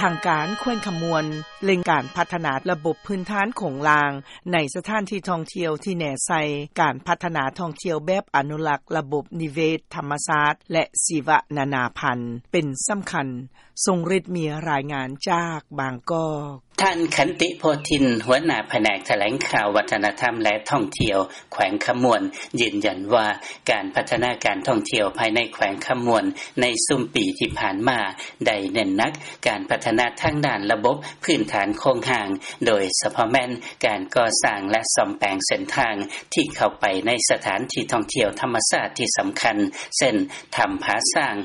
ທາງການແຂວງຄຳມ່ວນ ເລັ່ງການພັດທະນາລະບົບພື້ນຖານໂຄງລ່າງ ໃນສະຖານທີ່ທ່ອງທ່ຽວ ທີ່ແນໃສ່ການພັດທະນາທ່ອງທ່ຽວແບບອະນຸລັກລະບົບນິເວດທຳມະຊາດ ແລະ ຊີວະນານາພັນ ເປັນສຳຄັນ. ຊົງຣິດ ມີລາຍງານຈາກບາງກອກ. ທ່ານ ຂັນຕິ ໂພທິນ ຫົວໜ້າພະແນກຖະແຫຼງຂ່າວ ວັດທະນະທຳ ແລະ ທ່ອງທ່ຽວ ແຂວງຄຳມ່ວນ ຢືນຢັນວ່າ ການພັດທະນາການທ່ອງທ່ຽວພາຍໃນແຂວງຄຳມ່ວນ ໃນຊຸມປີທີ່ຜ່ານມາ ໄດ້ເນັ້ນໜັກການພັດທະນາທາງດ້ານລະບົບພື້ນຖານໂຄງຮ່າງ, ໂດຍສະເພາະແມ່ນການກໍ່ສ້າງ ແລະ ສ້ອມແປງເສັ້ນທາງທີ່ເຂົ້າໄປໃນສະຖານທີ່ທ່ອງທ່ຽວທຳມະຊາດທີ່ສຳຄັນ ເຊັ່ນ ຖ້ຳຜາຊ້າງ,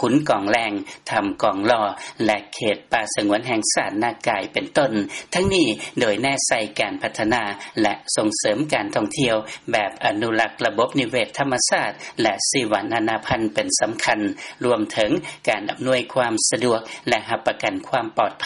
ຂຸນກອງແລງ, ຖ້ຳກອງລໍ່ ແລະ ເຂດປ່າສະຫງວນແຫ່ງຊາດນາກາຍ ເປັນຕົ້ນ. ທັງນີ້ໂດຍແນໃສ່ການພັດທະນາ ແລະ ສົ່ງເສີມການທ່ອງທ່ຽວແບບອະນຸລັກລະບົບນິເວດທຳມະຊາດ ແລະ ຊີວະນານາພັນເປັນສຳຄັນ, ລວມເຖິງການອຳນວຍຄວາມສະດວກ ແລະ ຮັບປະກັນຄວາມປອດໄພ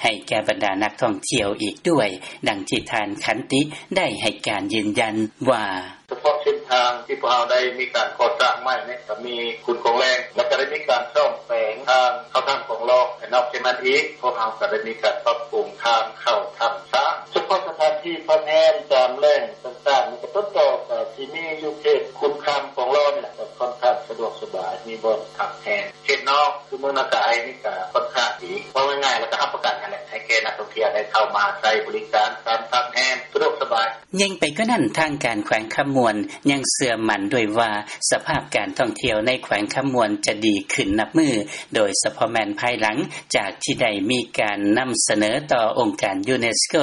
ໃຫ້ແກ່ບັນດານັກທ່ອງທ່ຽວອີກດ້ວຍ, ດັ່ງທີ່ທ່ານ ຂັນຕິ ໄດ້ໃຫ້ການຢືນຢັນວ່າ. ສະເພາະເສັ້ນທາງທີ່ພວກເຮົາໄດ້ມີການກໍ່ສ້າງໃໝ່ນີ້ ກໍມີຂຸນກອງແລງ ແລ້ວກໍໄດ້ມີການສ້ອມແປງທາງເຂົ້າຖ້ຳກອງລໍ່ ແລະ ນອກຈາກນັ້ນອີກ ພວກເຮົາກໍໄດ້ມີການປັບປຸງທາງເຂົ້າຖ້ຳຊ້າງ. ສະເພາະສະຖານທີ່ພັກແຮມຕາມແຫຼ່ງຕ່າງໆນີ້ ກໍຕົ້ນຕໍກໍຊິມີຢູ່ເຂດຂຸນຄຳກອງລໍ່ນີ້ແຫຼະ ກໍຄ່ອນຂ້າງສະດວກສະບາຍ ມີບ່ອນພັກແຮມ. ເຂດນອກຄືເມືອງນາກາຍນີ້ກໍຄ່ອນຂ້າງດີ ເວົ້າງ່າຍໆ ແລ້ວກໍຮັບປະກັນຫັ້ນແຫຼະ ໃຫ້ແກ່ນັກທ່ອງທ່ຽວໄດ້ເຂົ້າມາໃຊ້ບໍລິການການພັກແຮມສະດວກສະບາຍ. ຍິ່ງໄປກວ່ານັ້ນ, ທາງການແຂວງຄຳມ່ວນຍັງເຊື່ອໝັ້ນດ້ວຍວ່າ ສະພາບການທ່ອງທ່ຽວໃນແຂວງຄຳມ່ວນຈະດີຂຶ້ນນັບມື້, ໂດຍສະເພາະແມ່ນພາຍຫຼັງຈາກທີ່ໄດ້ມີການນຳສະເໜີຕໍ່ອົງການຢູເນສໂກ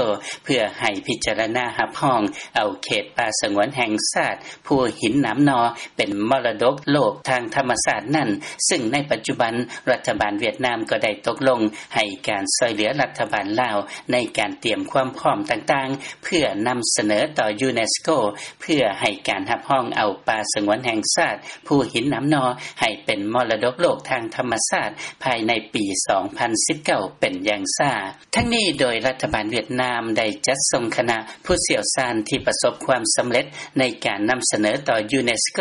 ເພື່ອໃຫ້ພິຈາລະນາຮັບຮອງເອົາເຂດປ່າສະຫງວນແຫ່ງຊາດ ພູຫີນໜາມໜໍ່ ເປັນມໍລະດົກໂລກທາງທຳມະຊາດນັ້ນ, ຊຶ່ງໃນປັດຈຸບັນ ລັດຖະບານຫວຽດນາມກໍໄດ້ຕົກລົງໃຫ້ການຊ່ວຍເຫຼືອລັດຖະບານລາວ ໃນການຕຽມຄວາມພ້ອມຕ່າງໆ ເພື່ອນຳສະເໜີຕໍ່ຢູເນສໂກ ເພື່ອໃຫ້ການຮັບຮອງເອົາປ່າສະຫງວນແຫ່ງຊາດ ພູຫີນໜາມໜໍ່ ໃຫ້ເປັນມໍລະດົກໂລກທາງທຳມະຊາດ ພາຍໃນປີສອງພັນສິບເກົ້າ ເປັນຢ່າງຊ້າ. ທັງນີ້ໂດຍລັດຖະບານຫວຽດນາມໄດ້ຈັດສົ່ງຄະນະຜູ້ຊ່ຽວຊານທີ່ປະສົບຄວາມສຳເລັດໃນການນຳສະເໜີຕໍ່ຢູເນສໂກ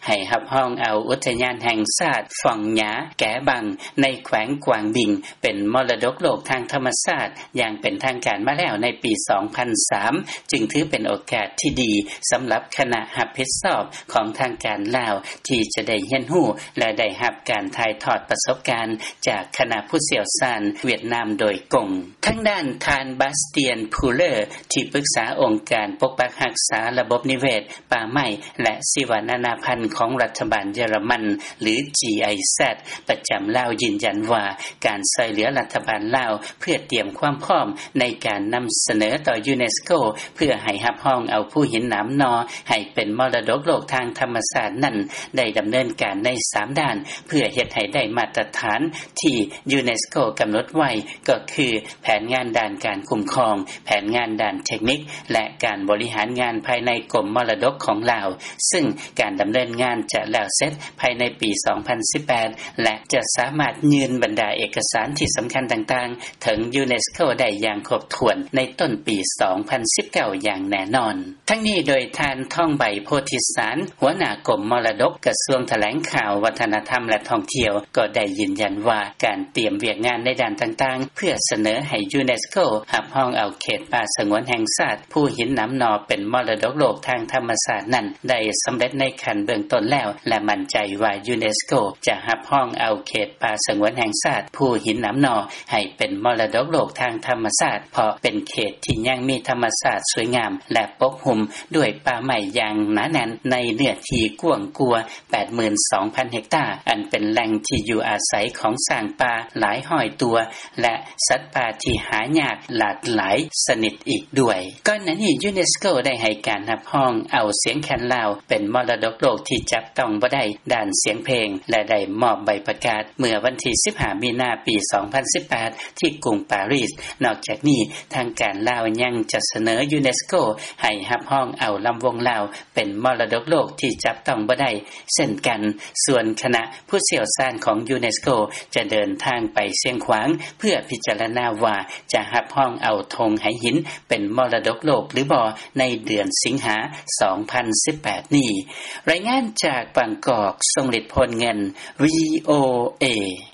ໃຫ້ຮັບຮອງເອົາອຸທະຍານແຫ່ງຊາດຟອງຫຍາແກບັງ ໃນແຂວງກວາງບິງ ເປັນມໍລະດົກໂລກທາງທຳມະຊາດ ຢ່າງເປັນທາງການມາແລ້ວໃນປີສອງພັນສາມ ຈຶ່ງຖືເປັນໂອກາດທີ່ດີສຳລັບຄະນະຮັບຜິດຊອບຂອງທາງການລາວ ທີ່ຈະໄດ້ຮຽນຮູ້ ແລະ ໄດ້ຮັບການຖ່າຍທອດປະສົບການຈາກຄະນະຜູ້ຊ່ຽວຊານຫວຽດນາມໂດຍກົງ. ທາງດ້ານທ່ານ ບາສຕຽນ ພູເລີ ທີ່ປຶກສາອົງການປົກປັກຮັກສາລະບົບນິເວດ, ປ່າໄມ້ ແລະ ຊີວະນານາພັນຂອງລັດຖະບານເຢຍລະມັນ ຫຼື ຈີໄອແຊັດ ປະຈຳລາວ ຢືນຢັນວ່າ ການຊ່ວຍເຫຼືອລັດຖະບານລາວ ເພື່ອຕຽມຄວາມພ້ອມໃນການນຳສະເໜີຕໍ່ຢູເນສໂກ ເພື່ອໃຫ້ຮັບຮອງເອົາພູຫີນໜາມໜໍ່ໃຫ້ເປັນມໍລະດົກໂລກທາງທຳມະຊາດນັ້ນ ໄດ້ດຳເນີນການໃນສາມດ້ານ ເພື່ອເຮັດໃຫ້ໄດ້ມາດຕະຖານທີ່ຢູເນສໂກກຳນົດໄວ້ ກໍຄື ແຜນງານດ້ານການຄຸ້ມຄອງ, ແຜນງານດ້ານເທັກນິກ ແລະ ການບໍລິຫານງານພາຍໃນກົມມໍລະດົກຂອງລາວ, ຊຶ່ງການດຳເນີນງານຈະແລ້ວເສັດພາຍໃນປີສອງພັນສິບແປດ ແລະ ຈະສາມາດຍື່ນບັນດາເອກະສານທີ່ສຳຄັນຕ່າງໆ ເຖິງຢູເນສໂກໄດ້ຢ່າງຄົບຖ້ວນໃນຕົ້ນປີສອງພັນສິບເກົ້າຢ່າງແນ່ນອນ. ທັງນີ້ໂດຍທ່ານ ທອງໃບ ໂພທິສານ ຫົວໜ້າກົມມໍລະດົກ ກະຊວງຖະແຫຼງຂ່າວ ວັດທະນະທຳ ແລະ ທ່ອງທ່ຽວ ກໍໄດ້ຢືນຢັນວ່າ ການຕຽມວຽກງານໃນດ້ານຕ່າງໆ ເພື່ອສະເໜີໃຫ້ຢູເນສໂກຮັບຮອງເອົາເຂດປ່າສະຫງວນແຫ່ງຊາດ ພູຫີນໜາມໜໍ່ ເປັນມໍລະດົກໂລກທາງທຳມະຊາດນັ້ນ ໄດ້ສຳເລັດໃນຂັ້ນເບື້ອງຕົ້ນແລ້ວ ແລະ ໝັ້ນໃຈວ່າຢູເນສໂກຈະຮັບຮອງເອົາເຂດປ່າສະຫງວນແຫ່ງຊາດ ພູຫີນໜາມໜໍ່ ໃຫ້ເປັນມໍລະດົກໂລກທາງທຳມະຊາດ ເພາະເປັນເຂດທີ່ຍັງມີທຳມະຊາດສວຍງາມ ແລະ ປົກຫຸ້ມດ້ວຍປ່າໄມ້ຢ່າງໜາແໜ້ນ ໃນເນື້ອທີ່ກວ້າງກວ່າ ແປດໝື່ນສອງພັນເຮັກຕາ ອັນເປັນແຫຼ່ງທີ່ຢູ່ອາໄສຂອງຊ້າງປ່າຫຼາຍຮ້ອຍຕົວ ແລະ ສັດປ່າທີ່ຫາຍາກຫຼາກຫຼາຍຊະນິດອີກດ້ວຍ. ກ່ອນໜ້ານີ້ ຢູເນສໂກໄດ້ໃຫ້ການຮັບຮອງເອົາສຽງແຄນລາວ ເປັນມໍລະດົກໂລກທີ່ຈັບຕ້ອງບໍ່ໄດ້ດ້ານສຽງເພງ ແລະ ໄດ້ມອບໃບປະກາດເມື່ອວັນທີສິບຫ້າ ມີນາ ປີສອງພັນສິບແປດ ທີ່ກຸງປາຣີສ. ນອກຈາກນີ້ ທາງການລາວຍັງຈະສະເໜີຢູເນສໂກໃຫ້ຮັບຮອງເອົາລຳວົງລາວ ເປັນມໍລະດົກໂລກທີ່ຈັບຕ້ອງບໍ່ໄດ້ເຊັ່ນກັນ. ສ່ວນຄະນະຜູ້ຊ່ຽວຊານຂອງຢູເນສໂກຈະເດີນທາງໄປຊຽງຂວາງ ເພື່ອພິຈາລະນາວ່າຈະຮັບຮອງເອົາທົ່ງໄຫຫີນເປັນມໍລະດົກໂລກຫຼືບໍ່ ໃນເດືອນສິງຫາ ສອງພັນສິບແປດນີ້. ລາຍງານຈາກບາງກອກ, ຊົງລິດ ໂພນເງິນ, ວີໂອເອ.